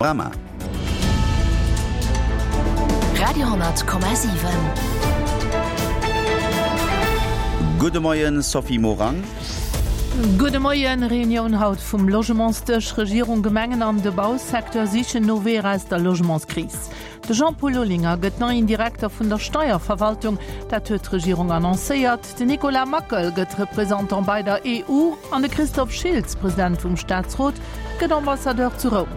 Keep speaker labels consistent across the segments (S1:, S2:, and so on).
S1: Panorama.
S2: Radio,7.
S1: Gudde Moien, Sophie Morang.
S3: Gudde Moien. Reunioun haut vum Logementsdësch. Regierung, Gemengen an de Bausecteur sichen no Weeër aus der Logementskris. De Jean-Paul Olinger gëtt neien Direkter vun der Steierverwaltung, dat huet d'Regierung annoncéiert. Den Nicolas Mackel gëtt Représentant bei der EU an de Christophe Schiltz, President vum Staatsrot, gëtt Ambassadeur zu Roum.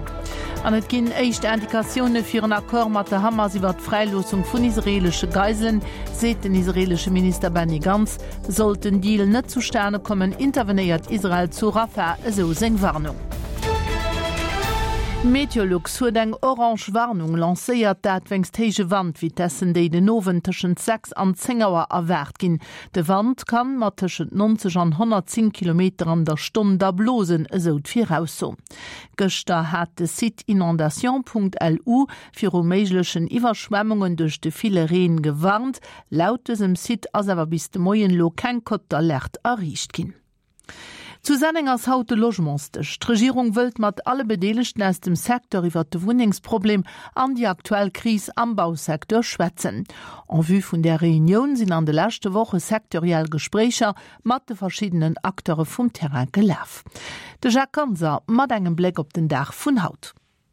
S3: An et ginn éischt Indikatioune fir en Accord mat der Hamas iwwer d'Fräiloossung vun israeelesche Geiselen, seet den israeelesche Minister Benny Gantz. Sollt den Deal net zustane kommen, intervenéiert Israel zu Rafah, esou seng Warnung. Meteolux huet eng orange Warnung lancéiert, dat wéinst héije Wandvitessen, déi den Owend tëschent 6 an 10 Auer erwaart ginn. De Wand kann mat tëschent 90 an 110 Kilometer an der Stonn da blosen, esou d'Virausso. Gëschter hat de Site inondation.lu viru méiglechen Iwwerschwemmungen duerch de ville Reen gewarnt. Laut dësem Site ass awer bis de Moien elo keng Cote d'alerte erreecht ginn. Zu Senneng ass haut de Logementsdësch. D'Regierung wëllt mat alle Bedeelegten aus dem Secteur iwwert de Wunnengsproblem an déi aktuell Kris am Bausecteur schwätzen. En vue vun där Reunioun sinn an de leschte Woche sectoriell Gespréicher mat de verschiddenen Acteure vum Terrain gelaf. De Jacques Ganser mat engem Bléck op den Dag vun haut.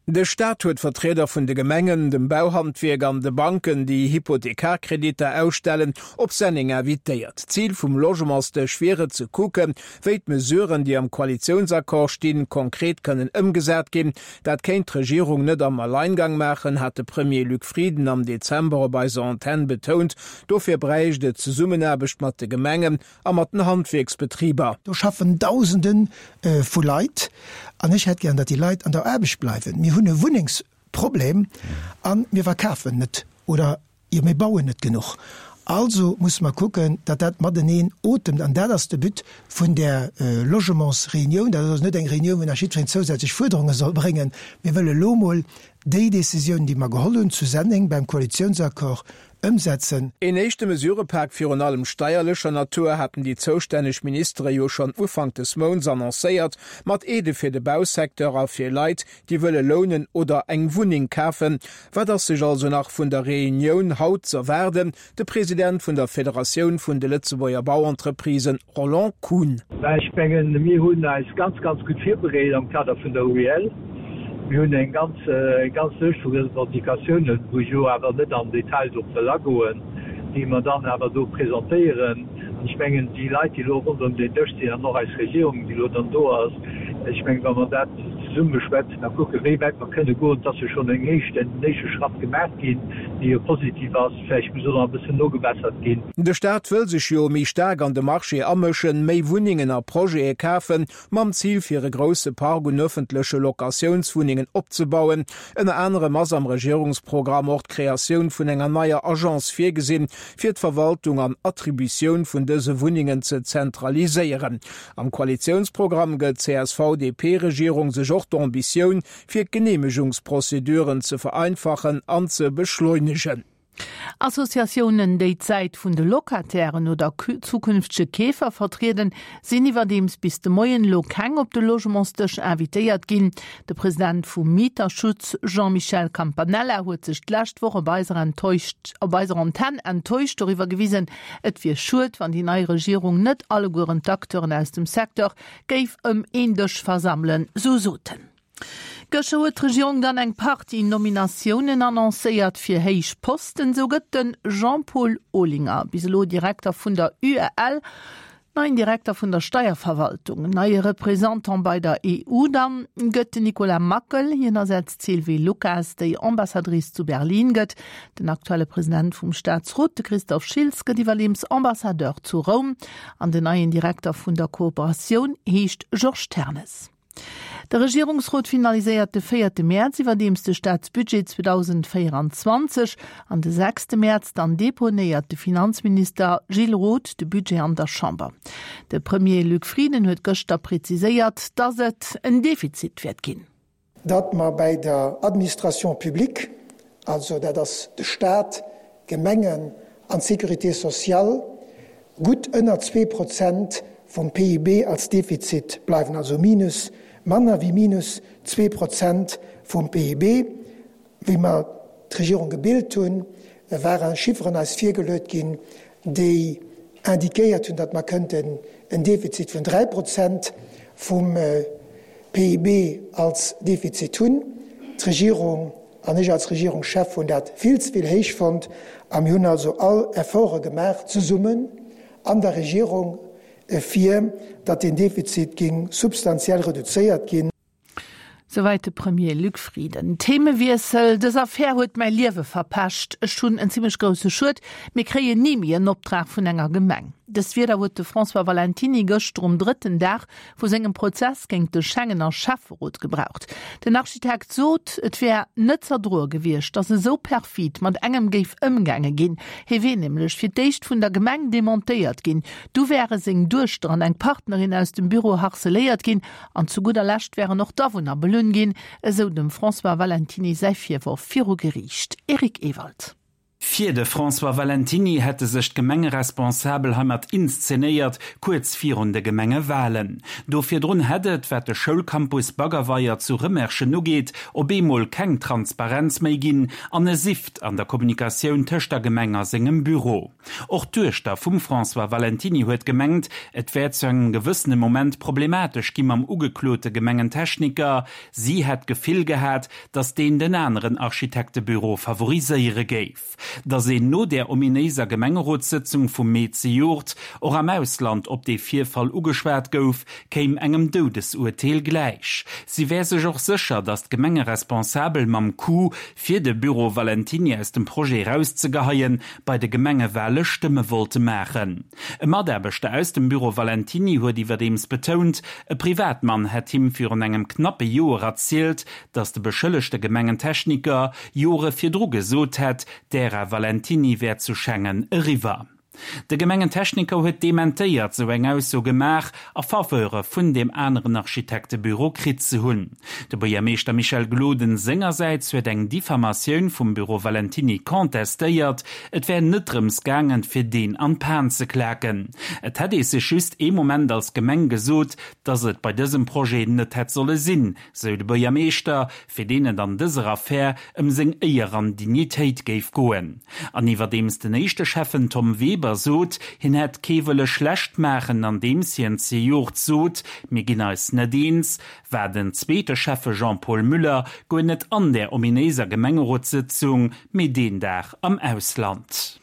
S4: De Staat huet Vertrieder vun de Gemengen, dem Bauhandwierk an de Banken, déi Hypothekarkreditter ausstellen, op Senneng invitéiert. Zil vum Logementsdësch wier et, ze kucken, wéi d'Mesuren, déi am Koalitiounsaccord stinn, konkret kënnen ëmgesat ginn. Dat kéint d'Regierung net am Alleingang maachen, hat de Premier Luc Frieden am Dezember op eiser Antenn betount. Dofir bräicht et Zesummenaarbecht mat de Gemengen a mat den Handwierksbetriber.
S5: Do schaffen Dausende vu Leit an ech hätt gären, datt déi Leit an der Aarbecht bleiwen. Mir hunn e Wunnengsproblem a mir verkafen net oder jo mir bauen net genuch. Also musse mer kucken, datt dat mateneen otemt an dat ass de But vun där Logementsreunioun. Dat ass also net eng Reunioun, wou nach jiddwereen zousätzlech Fuerderunge soll bréngen. Mir wëlle lo mol déi Décisioun, déi mer geholl hunn zu Senneng beim Koalitiounsaccord, Ëmsetzen.
S4: Een éischte Mesurëpak, virun allem steierlecher Natur, haten déi zoustänneg Ministere jo schonn Ufank des Mounts annoncéiert, mat Aidë fir de Bausecteur a fir Leit, déi wëlle lounen oder eng Wunneng kafen. Wat ass sech also nach vun der Reunioun haut z'erwaarden? De President vun der Federatioun vun de Lëtzebuerger Bauentreprisen, Roland Kuhn.
S6: Mä ech mengen, mir hunn eis ganz, ganz gutt virbereet am Kader vun der UEL. Mir hunn eng ganz, eng ganz Lëscht vu Revendicatiounen, wou ech elo awer net am Detail drop wëll agoen, déi mer dann awer do presentéieren. An ech mengen, déi Leit, déi elo ronderëm deen Dësch sinn, an och eis Regierung, déi elo dann do ass, ech mengen, wa mer dat zesumme beschwätzen a kucken, wéi wäit mer kënne goen, et ass jo schonn eng éischt, en éischte Schratt gemaach ginn, dee jo positiv ass, vläicht muss och nach e bëssen nogebessert ginn.
S4: De Staat wëll sech jo méi staark an de Marché amëschen, méi Wunnengen a Projete kafen, mam Zil fir e grousse Park un ëffentleche Locatiounswunnengen opzebauen. Ënner anerem ass am Regierungsprogramm och d'Kreatioun vun enger neier Agence virgesinn, fir d'Verwaltung an Attributioun vun dëse Wunnengen ze zentraliséieren. Am Koalitiounsprogramm gëtt d'CSV-DP-Regierung sech och d'Ambitioun, fir d'Geneemegungsprozeduren ze vereinfachen an ze beschleunegen.
S3: Associatiounen, déi d'Säit vun de Locatairen oder zukünftege Keefer vertrieden, sinn iwwerdeems bis de Moien elo keng op de Logementsdësch invitéiert ginn. De President vum Mieterschutz Jean-Michel Campanella huet sech d'lescht Woch op eiser op eiser Antenn enttäuscht doriwwer gewisen, et wier schued, wann déi nei Regierung net allegueren d'Acteuren aus dem Secteur géif ëm een Dësch versammelen, sou sot en. Gëschter huet d'Regierung dann eng Partie Nominatiounen annoncéiert fir héich Posten. Sou gëtt de Jean-Paul Olinger, bis elo Direkter vun der UEL, neien Direkter vun der Steierverwaltung. Neie Représentant bei der EU dann gëtt den Nicolas Mackel. Hien ersetzt d'Sylvie Lucas, déi Ambassadrice zu Berlin gëtt. Den aktuelle President vum Staatsrot, de Christophe Schiltz, gëtt iwwerdeems Ambassadeur zu Roum. An den neien Direkter vun der Kooperatioun heescht Georges Ternes. De Regierungsrot finaliséiert de véierte Mäerz iwwerdeems de Staatsbudget 2024. An de sechste Mäerz dann deponéiert de Finanzminister Gilles Roth de Budget an der Chamber. De Premier Luc Frieden huet gëschter preziséiert, datt et en Defizit wäert ginn.
S5: Datt mer bäi der Administration publique, also dat ass de Stat, d'Gemengen an d'Sécurité sociale, gutt ënner 2% vum PIB als Defizit bleiwen, also minus. Manner wéi minus 2% vum PIB. Wéi mer d'Regierung gebilt hunn, ware Chifferen eis virgeluet ginn, déi indiquéiert hunn, datt mer kënnten en Defizit vun 3 Prozent vum PIB als Defizit hunn. D'Regierung an ech als Regierungschef hunn dat vill ze vill héich fonnt a mir hunn also all Efforte gemaach zesummen an der Regierung, fir datt deen Defizit géing substantiell reduzéiert ginn.
S3: Souwäit de Premier Luc Frieden. Themewiessel, Dës Affär huet mäi Liewe verpescht. Ech hunn en zimmlech grousse Schued. Mir kréien ni méi en Optrag vun enger Gemeng. Dës Wierder huet de François Valentiny gëschter um drëtten Dag vu sengem Prozess géint de Schengener Schäfferot gebraucht. Den Architekt sot, et wär net z'erdroe gewiescht, datt esou perfid mat engem géif ëmgaange ginn. Hie wier nämlech fir d'éischt vun der Gemeng demontéiert ginn, du wäre seng Duechter an eng Partnerin aus dem Büro harceléiert ginn An zu gudder Lescht wären och d'Awunner belunn ginn, esou dem François Valentiny säi Virworf viru Geriicht. Eric Ewald.
S7: Fir de François Valentiny hätte sech d'Gemengeresponsabel heimat inszenéiert, kuerz virun de Gemengewalen. Do virdrun hätt et, wat de Schoulcampus Baggerweier zu Rëmerschen ugeet, op eemol keng Transparenz méi ginn an e Sift an der Kommunikatioun tëscht der Gemeng a sengem Büro. Och d'Duechter vum François Valentiny huet gemengt, et wär zu engem gewëssene Moment problematesch gi mam ugeklote Gemengentechniker. Si hätt d'Gefill gehat, datt deen den aneren Architektebüro favoriséiere géif. Datt een no där ominéiser Gemengerotssëtzung vum Mee zejoert och am Ausland op dee Virfall ugeschwat gouf, kéim engem Doudesurteel gläich. Si wär sech och sécher, datt d'Gemengeresponsabel mam Coup, fir de Büro Valentiny aus dem Projet erauszegeheien, bei de Gemengewale Stëmme wollte maachen. E Mataarbechter aus dem Büro Valentiny huet iwwerdeems betount, e Privatmann hätt him virun engem knappe Joer erzielt, datt de beschëllegte Gemengentechniker Jore virdru gesot hätt, d'Ära Valentiny wär zu Schengen eriwwer. De Gemengentechniker huet dementéiert, sou eng Ausso gemaach a Faveure vun deem aneren Architektebüro kritt ze hunn. De Buergermeeschter Michel Gloden sengersäits huet eng Diffamatioun vum Büro Valentiny contestéiert. Et wär net drëms gaangen, fir deen an d'Pan ze klaken. Et hätt ee sech just ee Moment als Gemeng gesot, datt et bei dësem Projet net hätt solle sinn, sou de Buergermeeschter, fir deen et an dëser Affär ëm seng Éier an Dignitéit géif goen. An iwwerdeems den éischte Schäffen Tom Weber sot, hien hätt kee wëlle schlecht maachen, andeems hien zejoert sot, mir ginn eis net eens, war den zweete Schäffe Jean-Paul Müller guer net an där ominéiser Gemengerotssëtzung, mee deen Dag am Ausland.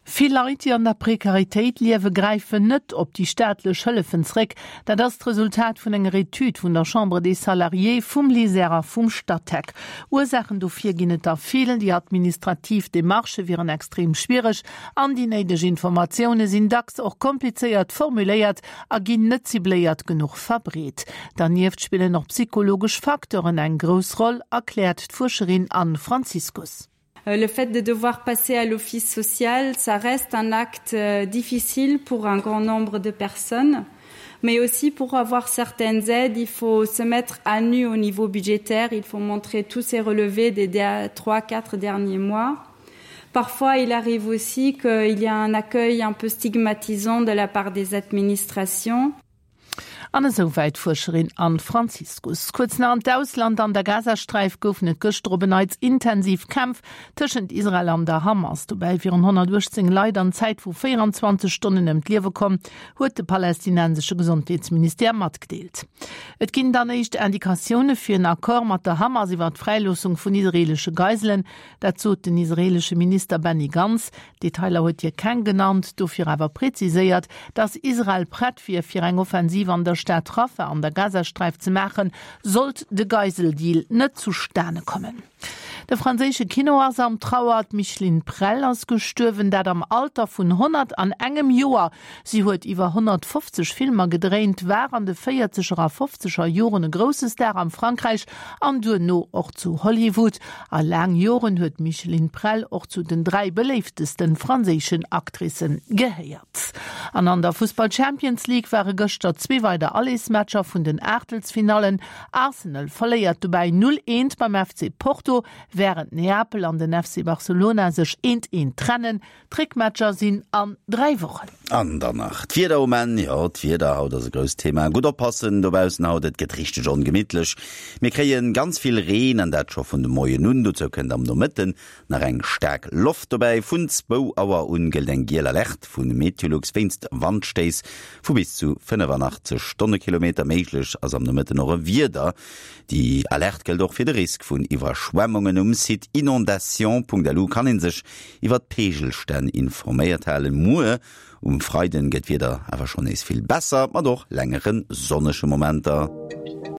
S3: Vill Leit, déi an der Prekaritéit liewen, gräifen net op déi staatlech Hëllefen zréck. Dat ass d'Resultat vun enger Etüd vun der Chambre des Salariés, vum LISER a vum Statec. Ursaachen dofir ginn et der vill, Déi administrativ Demarchë wieren extrem schwiereg an déi néideg Informatioune sinn dacks och komplizéiert formuléiert a ginn net cibléiert genuch verbreet. Dernieft spillen och psychologesch Facteuren eng grouss Roll, erkläert d'Fuerscherin Anne Franziskus.
S8: Euh, le fait de devoir passer à l'office social, ça reste un acte euh, difficile pour un grand nombre de personnes. Mais aussi pour avoir certaines aides, il faut se mettre à nu au niveau budgétaire, il faut montrer tous ses relevés des trois, quatre derniers mois. Parfois, il arrive aussi qu'il y a un accueil un peu stigmatisant de la part des administrations.
S3: An esou wäit d'Fuerscherin Anne Franziskus. Kuerz nach an d'Ausland, An der Gazasträif goufen et gëschter op en Neits intensiv Kämpf tëschent Israel an der Hamas. Dobäi wieren 118 Leit an Zäit vu 24 Stonnen ëm d'Liewe komm, huet de palästinensesche Gesondheetsministère matgedeelt. Et ginn dann éischt Indikatioune fir en Accord mat der Hamas iwwer d'Fräiloossung vun israeelesche Geiselen. Dat sot den israeelesche Minister Benny Gantz. Detailer huet hie keng genannt, dofir awer preziséiert, datt Israel prett wier, fir eng Offensiv an der Stad Rafah an der Gazasträif ze maachen, sollt de Geiseldeal net zustane kommen. De franséische Kino ass am Trauer, D'Micheline Prel ass gestuerwen, dat am Alter vun 101 Joer. Si huet iwwer 150 Filmer gedréint, war an de véierzeger a fofzeger Joren e grousse Star am Frankräich an duerno och zu Hollywood. A laang Joren huet d'Micheline Prel och zu den 3 beléiftesten franséischen Actricen gehéiert. An an der Fussball Champions League ware gëschter zwee weider Allersmatcher vun den Aachtelsfinallen. Arsenal verléiert dobäi 0, 1 beim FC Porto. Wärend Neapel an den FC Barcelona sech eent eent trennen. D'Réckmatcher sinn an 3 Wochen.
S1: An dann nach d'Wieder um Enn. Jo, d'Wieder haut ass e grousst Thema. Gutt oppassen dobaussen haut, et gëtt richteg ongemitlech. Mir kréie ganz vill Reen an dat scho vun de Moien un. Dozou kënnt am Nomëtten nach eng staark Loft dobäi. Vun zwou Auer un gëllt eng giel Alerte vu Meteolux wéinst Wandstéiss vu bis zu 85 Stonnekilometer. Méiglech ass am Nomëtten och e Wieder. Déi Alerte gëllt och fir de Risk vun Iwwerschwemmungen. Um Site inondation.lu kann ee sech iwwer d'Peegelstänn informéiert halen. Muer um Freiden gëtt d'Wieder awer schonn nees vill besser, mat och längere sonnege Momenter.